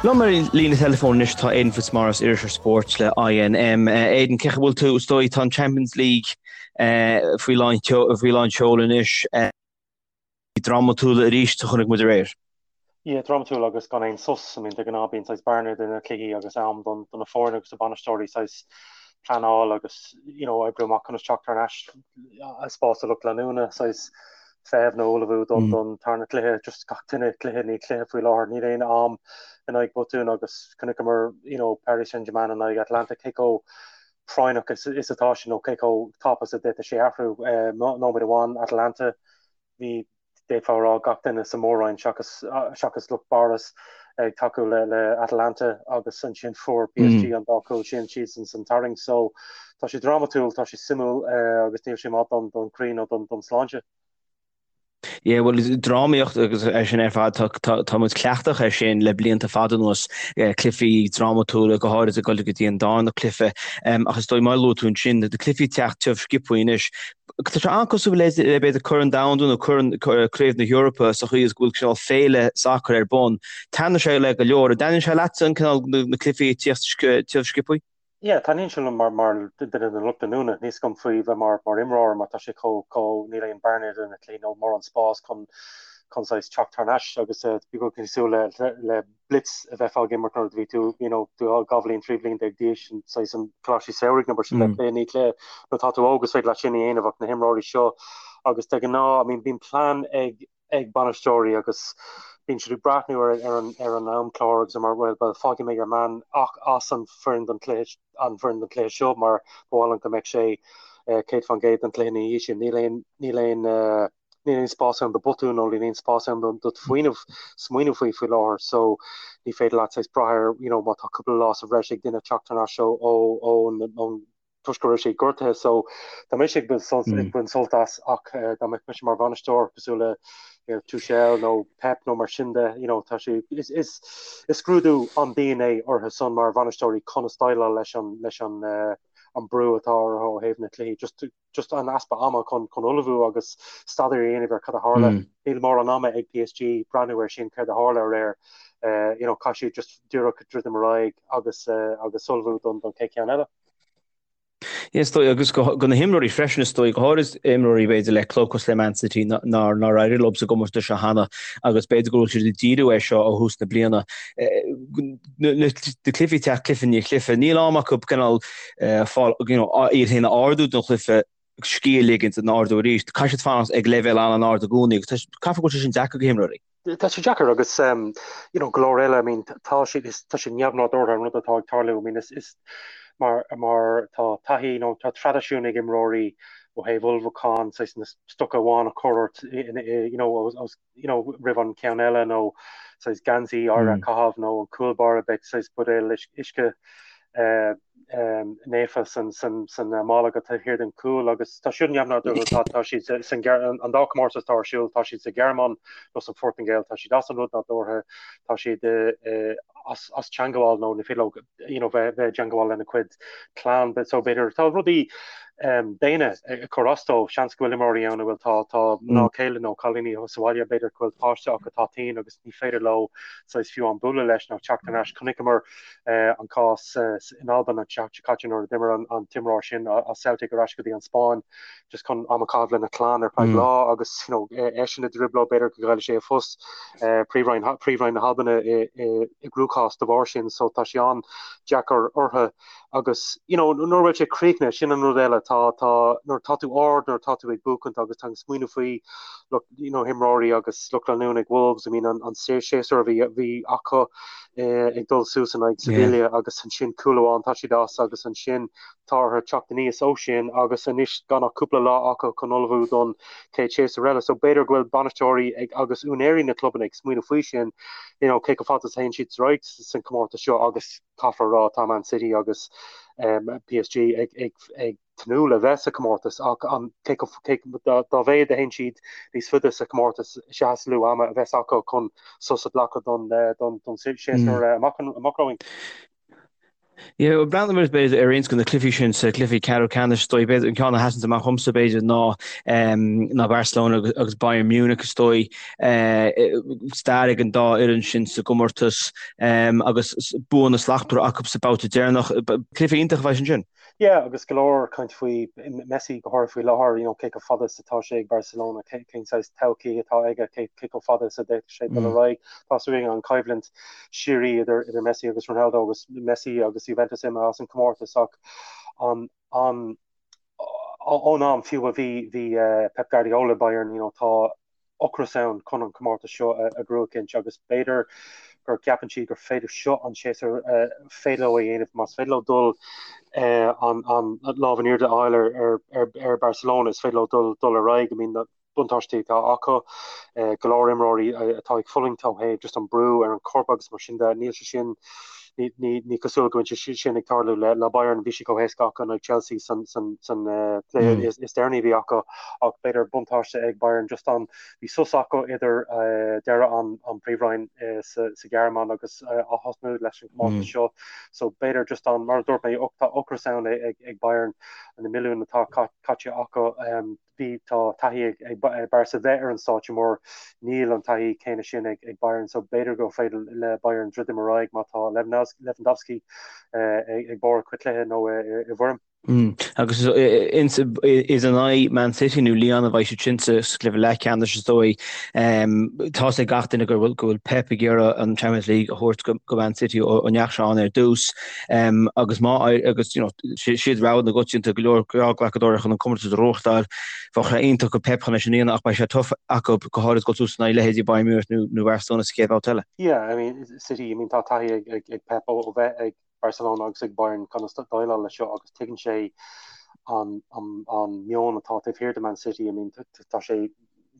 Liom ar líne teileafóin anois tá Aidan Fitzmaurice, iriseoir spóirt le INM. Aidan, cén chaoi a bhfuil tú? Is dóigh tá an Champions League faoi lán faoi lán seoil anois. Drámatúil arís a chonaic muid aréir. Yeah, drámatúil agus gan aon sos. I mean, de ghnáth bíonn saghas bearna idir na cluichí agus am don do na foirne agus na bainisteoirí saghas pleanáil agus you know, oibriú amach conas teacht thar n-ais spás do lucht leanúna saghas feitheamh nó ullmhú don don tarna cluiche, just gach duine cluiche i ndiaidh cluiche faoi láthair, níl aon am in aghaidh botúin agus chonaiceamar you know, Paris Saint-Germain in aghaidh Atalanta cé chomh práinneach is, is atá sin nó cé chomh tapa is a d'fhéadfadh sé athrú eh, nóiméad amháin Atalanta bhí d'fhéadfá a rá gach duine sa mhór-roinn seachas seachas lucht Barça ag tacú le le Atalanta agus ansin fuair PSG an dá chúl sin siadsan san tarraingt so tá sé drámatúil, tá sé suimiúil agus níl sé maith don don chroí nó don don sláinte. Yeah, well, drámaíocht agus é sin ar fad, tá, tá, tá muid cleachtach ar sin le blianta fada anuas, eh, cluichí drámatúla, go háirid ag dul go dtí an darna cluiche. Um, ach is dóigh mar a luaigh tú ansin, na cluichí ag teacht tiubh sciobtha anois, Tá sé an-cosúil le b'fhéidir Corn Domhanda nó Corn Craobh na hEorpa sa chaoi is go bhfuil cineál féile sacair ar bun. Taitníonn sé le go leor. An dtaitníonn sé leatsa an cineál na cluichí ag tíocht tiubh sciobtha? Yeah, taitníonn sé liom mar mar duine den lucht leanúna. Níl a fhios agam faoi bheith mar mar imreoir mar tá sé chomh chomh níl aon bearna idir na cluichí nó mórán spás chun chun saghas teacht thar n-ais agus bhí cosúil le le blitz a bheifeá ag imirt nuair a bhí tú you know 12 bhliain 13 bhliain d'aois an saghas an coláistí samhraidh nó mar sin de cluiche i ndiaidh cluiche nuair atá tú óg is féidir leat sin a dhéanamh ach na himreoirí seo agus de ghnáth I mean bíonn plean ag ag bainisteoirí agus bíonn siad ag breathnú ar ar an ar an amchlár agus mar well well fágfaidh mé your man ach as an foireann don chluiche an foireann don chluiche seo mar ba mhaith liom go mbeadh sé 100% don chluiche ina dhiaidh sin níl aon níl aon níl aon spás ann do botún nó níl aon spás ann do smaoineamh smaoineamh faoi faoi láthair so ní féidir leat saghas brath ar you know má tá cúpla lá sa bhreis ag duine teacht thar n-ais ó ó ón toisc go raibh sé gortaithe so tá mise ag baint sult ag baint sult as ach eh, dá mbeadh mise mar bhainisteoir cosúil le you know, Tuchel nó Pep nó mar sin de you know, tá sé is, is, is scrúdú an-dian é orthu san mar bhainisteoirí conas déileáil leis an leis an uh, an brú atá orthu ó thaobh na cluichí just just an easpa ama chun chun ullmhú agus staidéar a dhéanamh ar cad a tharla. Níl mórán ama ag PSG breathnú ar sin céard a tharla aréir. You know, caithfidh siad just díreach druidim ar aghaidh agus agus ullmhú don don chéad cheann eile. Is dóigh agus go go na himreoirí freisin is dóigh go háirid imreoirí b'fhéidir le club cosúil le Man City nár nár éirigh leo sa gcomórtas seo cheana agus b'fhéidir go bhfuil siad ag díriú air seo ó thús na bliana. Na cluichí ag teacht cluiche i ndiaidh cluiche níl am acu cineál fáil you know iad féin a ardú don chluiche, scíth a ligint an ardú arís. Caithfidh siad fanacht ag leibhéal an-ard i gcónaí agus caithfidh go bhfuil sé sin deacair do himreoirí. Tá sé deacair agus you know go leor eile I mean tá sé tá sé neamhnádúrtha an rud atá ag tarlú I mean is is mar mar tá taithí nó tá traidisiún ag imreoirí ó thaobh ullmhúcháin saghas na stoca amháin a chur ort you know os you know, roimh an ceann eile nó saghas geansaí áirithe a chaitheamh nó an cúl báire beidh saghas buidéal uisce naofa san san san mála agat taobh thiar den chúl agus tá siad neamhnádúrtha tá tá siad san an dá chomórtas atá ar siúl tá siad sa Ghearmáin nó san Phortaingéil tá siad as an rud nádúrtha tá siad as as teangmháil nó ní féidir leo you know, bheith bheith i dteangmháil lena cuid clann so b'fhéidir tá rudaí um, daonna ag cur as dóibh seans go bhfuil imreoirí ann a bhfuil tá tá mná céile nó cailíní sa bhaile b'fhéidir go bhfuil páiste acu atá tinn agus ní féidir leo saghas fiú an bualadh leis nó teacht thar n-ais chonaiceamar uh, an cás uh, in Albain an tseachtain seo caite nuair a d'imir an, an t-imreoir sin as Celtic ar ais go dtí an Spáinn just chun am a chaitheamh lena chlann ar feadh lá agus you know, eisean i dtrioblóid b'fhéidir go gcaillfidh sé a phost príomhroinn príomhroinn na hAlban i i gcruachás de bharr sin so tá sé an-deacair orthu agus you know, nuair a bhfuil sé críochnaithe sin an rud eile tá tá nuair tá tú ard nuair tá tú ag buachaint agus tá an smaoineamh faoi lucht you know, imreoirí agus lucht leanúna ag Wolves I mean an, an séasúr a bhí bhí acu eh, ag dul suas in aghaidh Sevilla agus ansin cúl amháin tá siad as agus ansin Tá orthu teacht aníos ó sin agus anois gan ach cúpla lá acu chun ullmhú don chéad séasúr eile. So b'fhéidir go bhfuil bainisteoirí ag agus úinéirí na clubanna ag smaoineamh faoi sin, you know, cé chomh fada is a théann siad ar aghaidh san comórtas seo agus caithfear a rá tá Man City agus um, PSG ag, ag, ag tnúth le bheith sa comórtas ach an cé chomh cé dá, dá mhéad a théann siad níos faide sa comórtas is ea is lú ama a bheas acu chun sos a ghlacadh don, don, don séasúr amach, amach romhainn. Yeah, breathnóidh muid b'fhéidir ar roinnt de na cluichí sin sa cluichí ceathrú ceannais is dóigh b'fhéidir an ceann a sheasann amach dhomsa b'fhéidir ná ná Barcelona agus Bayern Munich is dóigh stair ag an dá fhoireann sin sa gcomórtas agus buanna slachtmhara acu sa babhta deireanach. Cluiche iontach a bheidh ansin. Yeah, agus go leor caint faoi Messi go háirithe faoi láthair, you know, cé chomh fada is atá sé ag Barcelona, cén saghas todhchaí atá aige, cé chomh fada is a d'fhéadfadh sé dul ar aghaidh. Tá súil againn an coimhlint síoraí idir idir Messi agus Ronaldo agus Messi agus Juventus imithe as an comórtas ach an an ón am fiú a bhí bhí Pep Guardiola Bayern, you know, tá ocras ann chun an comórtas seo a ghnóthachaint agus b'fhéidir gur gceapann siad gur féidir seo an séasúr féidir leo a dhéanamh más féidir leo dul an an lámh in airde a fháil ar ar ar ar Barcelona is féidir leo dul dul ar aghaidh. I mean, na buntáistí atá acu, go leor imreoirí atá ag fulaingt ó thaobh just an brú ar an corp agus mar sin de, níl sé sin ní cosúil go bhfuil sé sin ag tarlú le Bayern, bhí sé chomh héasca acu in aghaidh Chelsea san cluiche is deireanaí a bhí acu ach b'fhéidir buntáiste ag Bayern just an bhí sos acu idir deireadh an príomhroinn sa Ghearmáin agus ath-thosnú leis an gcomórtas seo so b'fhéidir just an mar a dúirt mé tá ocras ann ag Bayern na milliúin atá caite acu. Bhí, tá taithí ag Barca bheith ar an stáitse mór, níl an taithí céanna sin ag Bayern so b'fhéidir gur féidir le Bayern druidim ar aghaidh má tá Lewandowski ag barr a chuid cluiche nó i bhfoirm. Agus is in aghaidh Man City nó Lyon a bheidh siad sin sa chluiche leathcheannais is dóigh. Tá's ag gach duine go bhfuil Pep ag iarraidh an Champions League a thabhairt go Man City ó ndeachaigh sé ann ar dtús. Agus má agus you know siad rogha na gcoitianta go leor glacadóirí chun an comórtas a ghnóthachtáil. Bheadh sé iontach do Pep chun é sin a dhéanamh ach beidh sé tough acu go háirid dul suas in aghaidh leithéidí Bayern Munich nó nó Barcelona sa chéad bhabhta eile. Yeah, I mean City, I mean tá taithí ag ag ag Pep ó bheith ag Barcelona agus ag Bayern conas déileáil leis seo agus tuigeann sé an an an meon atá taobh thiar de Man City. I mean tá sé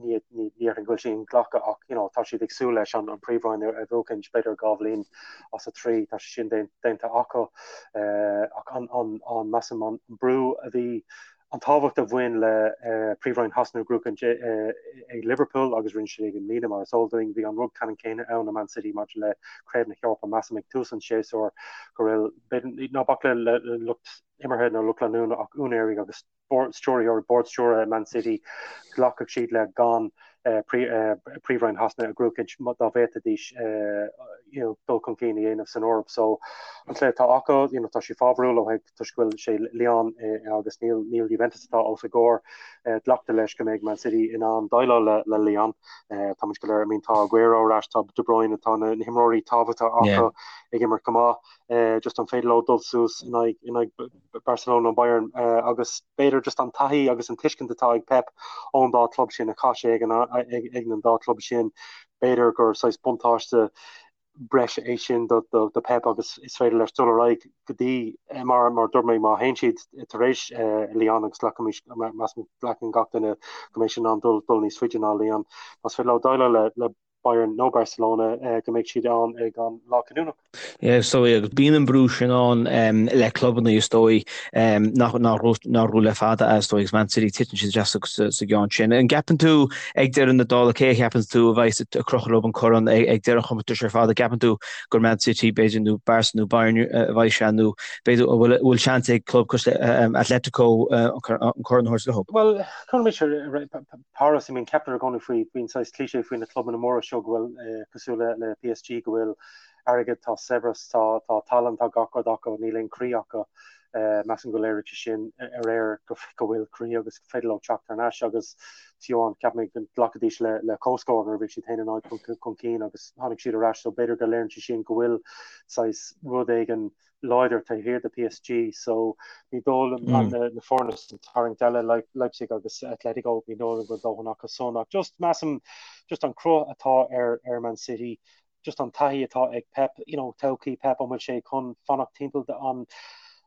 ní déarfainn go bhfuil sé inghlactha ach you know tá siad ag súil leis an príomhroinn a bhuachaint b'fhéidir 2 bhliain as a 3 tá sé sin déanta acu ach an an an measaim an brú a bhí an tábhacht a bhain le príomhroinn Shasana a ghnóthachaint ag Liverpool agus rinne siad i mbliana mar is eol dúinn bhí an rud ceannann céanna ann i Man City maidir le Craobh na hEorpa measaim ag tús an tséasúir go raibh ná bac le lucht imeartha nó lucht leanúna ach úinéirí agus stiúrthóirí, bord stiúrtha Man City, ghlacfadh siad le gan Príomhroinn Shasana a ghnóthachaint dá bhféadfaidís dul chun cinn a dhéanamh san Eoraip. So an cluiche atá acu, you know, tá sé fábharúil ó thaobh toisc go bhfuil sé Lyon agus níl níl Juventus atá os a gcomhair. Glactar leis go mbeidh Man City in ann déileáil le le Lyon. Tá muid go léir, I mean, tá Aguero ar ais, tá De Bruyne, tá na himreoirí tábhachtacha acu ag imirt go maith. Just an féidir leo dul suas in aghaidh in aghaidh Barcelona nó Bayern agus b'fhéidir just an taithí agus an tuiscint atá ag Pep ón dá chlub sin a chaith sé ag an dá chlub sin, b'fhéidir gur saghas buntáiste breise é sin do do Pep agus is féidir leis dul ar aghaidh go dtí mar mar dúirt mé má théann siad tar éis Lyon agus glacaimís measaim glacann gach duine go mbeidh siad in ann dul dul níos faide ná Lyon más féidir leo déileáil le le Bayern nó Barcelona go mbeidh siad ann ag an lá cinniúnach. Yeah, so agus bíonn an brú sin ann le clubanna is dóigh nach raibh le fada is dóigh agus Man City titeann siad isteach sa gceann sin. An gceapann tú ag deireadh na dála cé a cheapann tú a bheidh ag crochadh leo an corn ag deireadh an chomórtais ar fad? An gceapann tú gur Man City b'fhéidir nó Barca nó Bayern a bheidh sé nó b'fhéidir an bhfuil seans ag club cosúil le Atletico an corn a thabhairt leo? Bhuel, cuirfidh Paris, I mean ceaptar i gcónaí faoi, bíonn saghas cliché faoi na clubanna móra seo go bhfuil, cosúil le le PSG, go bhfuil airgead, tá saibhreas, tá tá tallann, tá gach rud acu, níl aon croí acu. Measaim go léirigh sé sin aréir go go bhfuil croí agus go féidir leo teacht thar n-ais agus fiú amháin ceap mé go nglacfaidís le le comhscór nuair a bhí siad 1-0 chun cinn agus tháinig siad ar ais so b'fhéidir go léiríonn sé sin go bhfuil saghas rud éigin láidir taobh thiar de PSG so ní dóigh liom na foirne sa tarraingt eile Leipzig agus Atletico ní dóigh liom go bhfuil dóthain acu san ach just measaim just an cruth atá ar ar Man City just an taithí atá ag Pep you know todhchaí Pep an bhfuil sé chun fanacht timpeall an.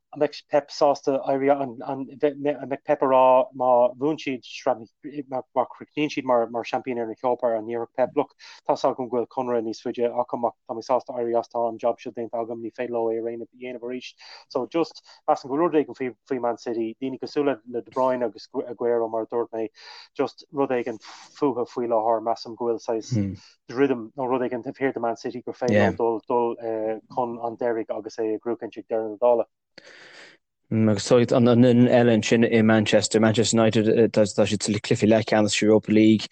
An mbeidh Pep sásta éirí, an mbeidh Pep ag rá má bhuann siad sraith, má chríochnaíonn siad mar seaimpíní na hEorpa, an ndéarfadh Pep, look, tá's agam go bhfuil conradh níos faide agam ach tá mé sásta éirí as, tá an job seo déanta agam, ní féidir leo é a dhéanamh arís. So just, measaim go bhfuil rud éigin faoi Man City, daoine cosúil le De Bruyne agus Aguero mar a dúirt mé, just rud éigin fúthu faoi láthair, measaim go bhfuil saghas druidim nó rud éigin taobh thiar de Man City gur féidir leo dul dul chun an deiridh agus é a ghnóthachaint ag deireadh na dála. Agus tá an fhoireann eile ansin i Manchester, Manchester United, tá siad sa cluiche leathcheannais Europa League.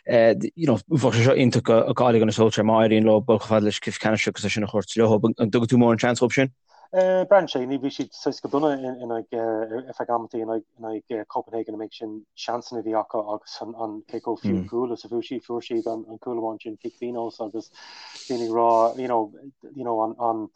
You know, bheadh sé seo iontach do Ole Gunnar Solskjaer má éiríonn leo dul chomh fada leis an cluiche ceannais agus é sin a thabhairt leo. An dtugann tú mórán seans dóibh sin? Braitheann sé, ní bhí siad saghas go dona in aghaidh ar feadh amantaí in aghaidh Copenhagen an méid sin seansanna a bhí acu agus an cé chomh fiú cúl is a fuair siad, fuair siad an cúl amháin sin cic pionóis agus daoine ag rá you know, you know, an, an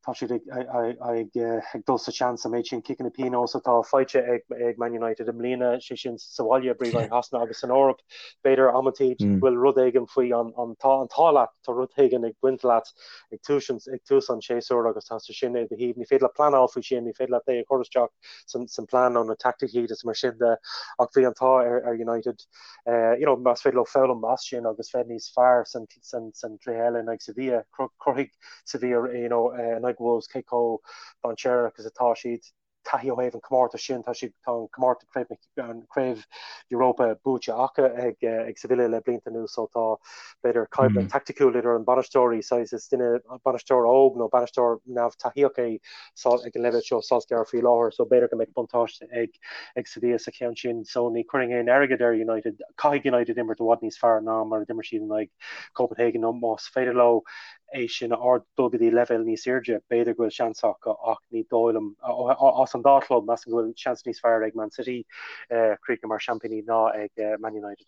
tá siad ag, ag, ag, ag dul sa seans an méid sin ciceanna pionóis atá faighte ag, ag Man United i mbliana, sé sin sa bhaile i bPríomhroinn Shasana agus san Eoraip, b'fhéidir amantaí bhfuil rud éigin faoi an, an, tá an t-ádh leat, tá rud éigin ag baint leat ag tús an ag tús an tséasúir agus tá sé sin i do thaobh. Ní féidir leat pleanáil faoi sin, ní féidir leat é a chur isteach san san plean nó na taicticí agus mar sin de ach bhí an t-ádh ar ar United eh, you know, más féidir leo foghlaim as sin agus bheith níos fearr san san san cluiche eile in aghaidh Sevilla, cruthaigh Sevilla you know, eh, in aghaidh Wolves cé chomh dainséarach is atá siad. taithí ó thaobh an comórtas sin, tá siad, tá an comórtas craobh na, an craobh Europa buaite acu ag, ag Sevilla le blianta anuas so tá b'fhéidir coimhlint taicticiúil idir an bainisteoirí, saghas is duine bainisteoir óg nó bainisteoir neamh-taithíoch é ag an leibhéal seo Solskjaer faoi láthair so b'fhéidir go mbeidh buntáiste ag, ag Sevilla sa cheann sin so ní chuirfinn aon airgead ar United, caithfidh United imirt i bhfad níos fearr ná mar a d'imir siad in aghaidh Copenhagen nó más féidir leo é sin a ard dul go dtí leibhéal níos airde, b'fhéidir go bhfuil seans acu ach ní dóigh liom, as an dá chlub, measaim go bhfuil seans níos fearr ag Man City críochnú mar seaimpíní ná ag Man United.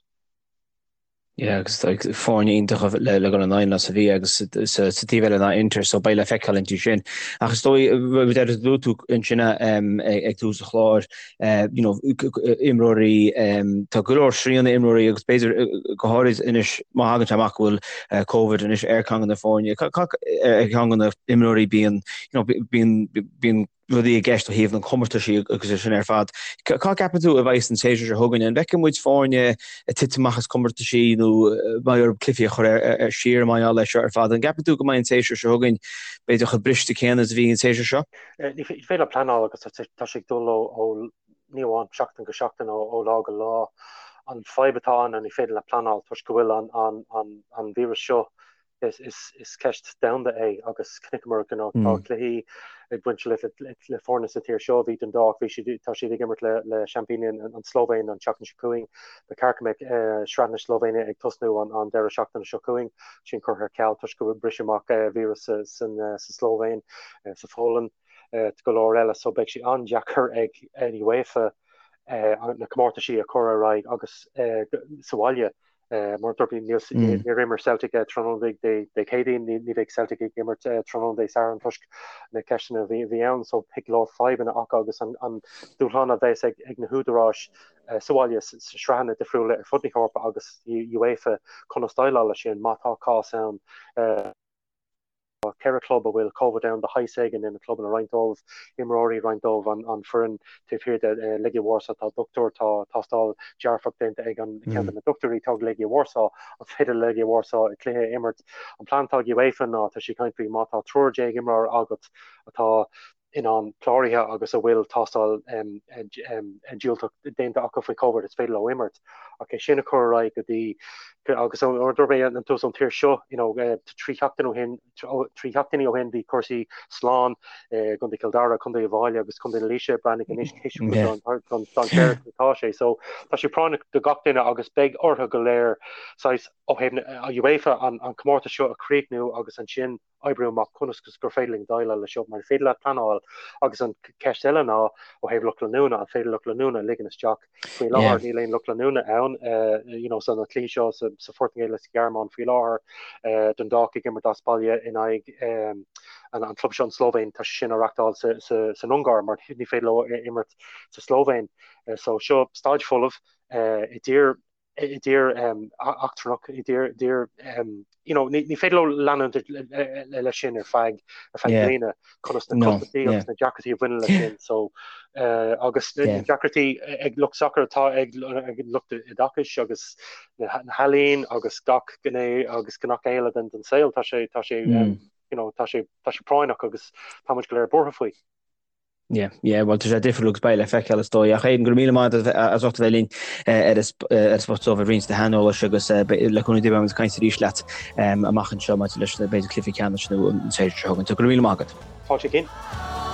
Yeah, agus foirne iontacha le le dul in aghaidh ná Sevilla agus sa taobh eile ná Inter, so beidh le feiceáil inti sin. Ach is dóigh, rud eile a luaigh tú ansin ag tús an chláir, you know, imreoirí, tá go leor srian ar imreoirí agus b'fhéidir go háirid anois má thagann sé amach go bhfuil Covid anois ar cheann de na foirne, ar cheann de na imreoirí bíonn, you know, bíonn, bíonn rudaí i gceist ó thaobh na comórtaisí agus é sin ar fad. Cá gceapann tú a bheidh an séasúr seo chugainn? An bhfeicfidh muid foirne ag titim amach as comórtaisí nó beidh orthu cluichí a chur ar siar mar gheall air seo ar fad? An gceapann tú go mbeidh an séasúr seo chugainn b'fhéidir chomh briste céanna is a bhí an séasúr seo? Ní féidir leat pleanáil agus tá sé ag dul ó ní amháin seachtain go seachtain, ó lá go lá. An fadhb atá ann ná ní féidir leat pleanáil toisc go bhfuil an víreas seo, is ceist domhanda é agus chonaiceamar go tá cluichí ag baint le foirne sa tír seo. Bhí Dundalk, bhí siad, tá siad ag imirt le seaimpíní an tSlóivéin an tseachtain seo chugainn. Ba cheart go mbeadh sraith na Slóivéine ag tosnú an deireadh seachtaine seo chugainn. Sin curtha ar ceal toisc go bhfuil briseadh amach víreas sa Slóivéin. sa Pholainn, go leor eile, so beidh sé an-deacair ag an UEFA na comórtaisí a chur ar aghaidh agus sa bhaile. Mar a dúirt mé, níor imir Celtic tráthnóna Dé Céadaoin, ní bheidh Celtic ag imirt tráthnóna Dé Sathairn toisc na ceisteanna a bhí ann, so beidh go leor fadhbanna acu agus an dúshlán a bheas ag na húdaráis sa bhaile sa sraitheanna difriúla ar fud na hEorpa agus UEFA conas déileáil leis sin má tá cás ann. Tá 4 chlub a bhfuil Covid ann de shaghas éigin ina gclubanna, roinnt dóibh imreoirí, roinnt dóibh an foireann taobh thiar de Legia Warsaw. Tá dochtúir, tá tástáil dearfach déanta ag an ceann de na dochtúirí atá ag Legia Warsaw. An féidir le Legia Warsaw cluiche a imirt? An plean atá ag UEFA ná, tá siad ag caint faoi má tá 13 imreoir agat atá in ann cláraithe agus a bhfuil tástáil diúltach déanta acu faoi Covid, is féidir leo imirt. Ach é sin a chur ar aghaidh go dtí agus mar a dúirt mé an tús ón tír seo, you know, 3 sheachtain ó shin, 3 sheachtainí ó shin bhí cúrsaí slán i gContae Chill Dara, Contae Uíbh Fhailí agus Contae na Laoise, breathnaigh anois cé chomh dainséarach atá sé. So tá sé práinneach do gach duine agus beidh orthu go léir saghas ó thaobh na UEFA an comórtas seo a chríochnú agus ansin oibriú amach conas gur féidir linn déileáil leis seo, mar ní féidir leat pleanáil. Agus an ceist eile ná, ó thaobh lucht leanúna, an féidir lucht leanúna a ligean isteach? Faoi láthair níl aon lucht leanúna ann, you know, sna cluichí seo sa Phortaingéil is sa Ghearmáin faoi láthair, Dundalk ag imirt as baile in aghaidh an club seo an Slóivéin, tá sé sin á reachtáil san Ungáir mar ní féidir leo imirt sa Slóivéin. So seo staid folamh i dtír. I dtír eachtrannach, i dtír, you know, ní féidir leo leanúint leis sin ar feadh ar feadh bliana conas na costaisí agus na deacrachtaí a bhaineann leis sin so agus na deacrachtaí ag lucht sacair atá ag lucht oideachais agus na healaíon agus gach gné agus gach eile den den saol tá sé tá sé you know, tá sé tá sé práinneach agus tá muid go léir buartha faoi. Yeah, yeah, bhuel tá sé difriúil agus beidh le feiceáil is dóigh. Ach Aidan, go raibh míle maith agat as ucht a bheith linn ar an Spota Dubh ag roinnt do shaineolais agus le cúnamh Dé beidh muid ag caint arís leat amach anseo maidir leis na b'fhéidir cluichí ceannais nó an tséasúr seo chugainn. So go raibh míle maith agat. Fáilte Cian.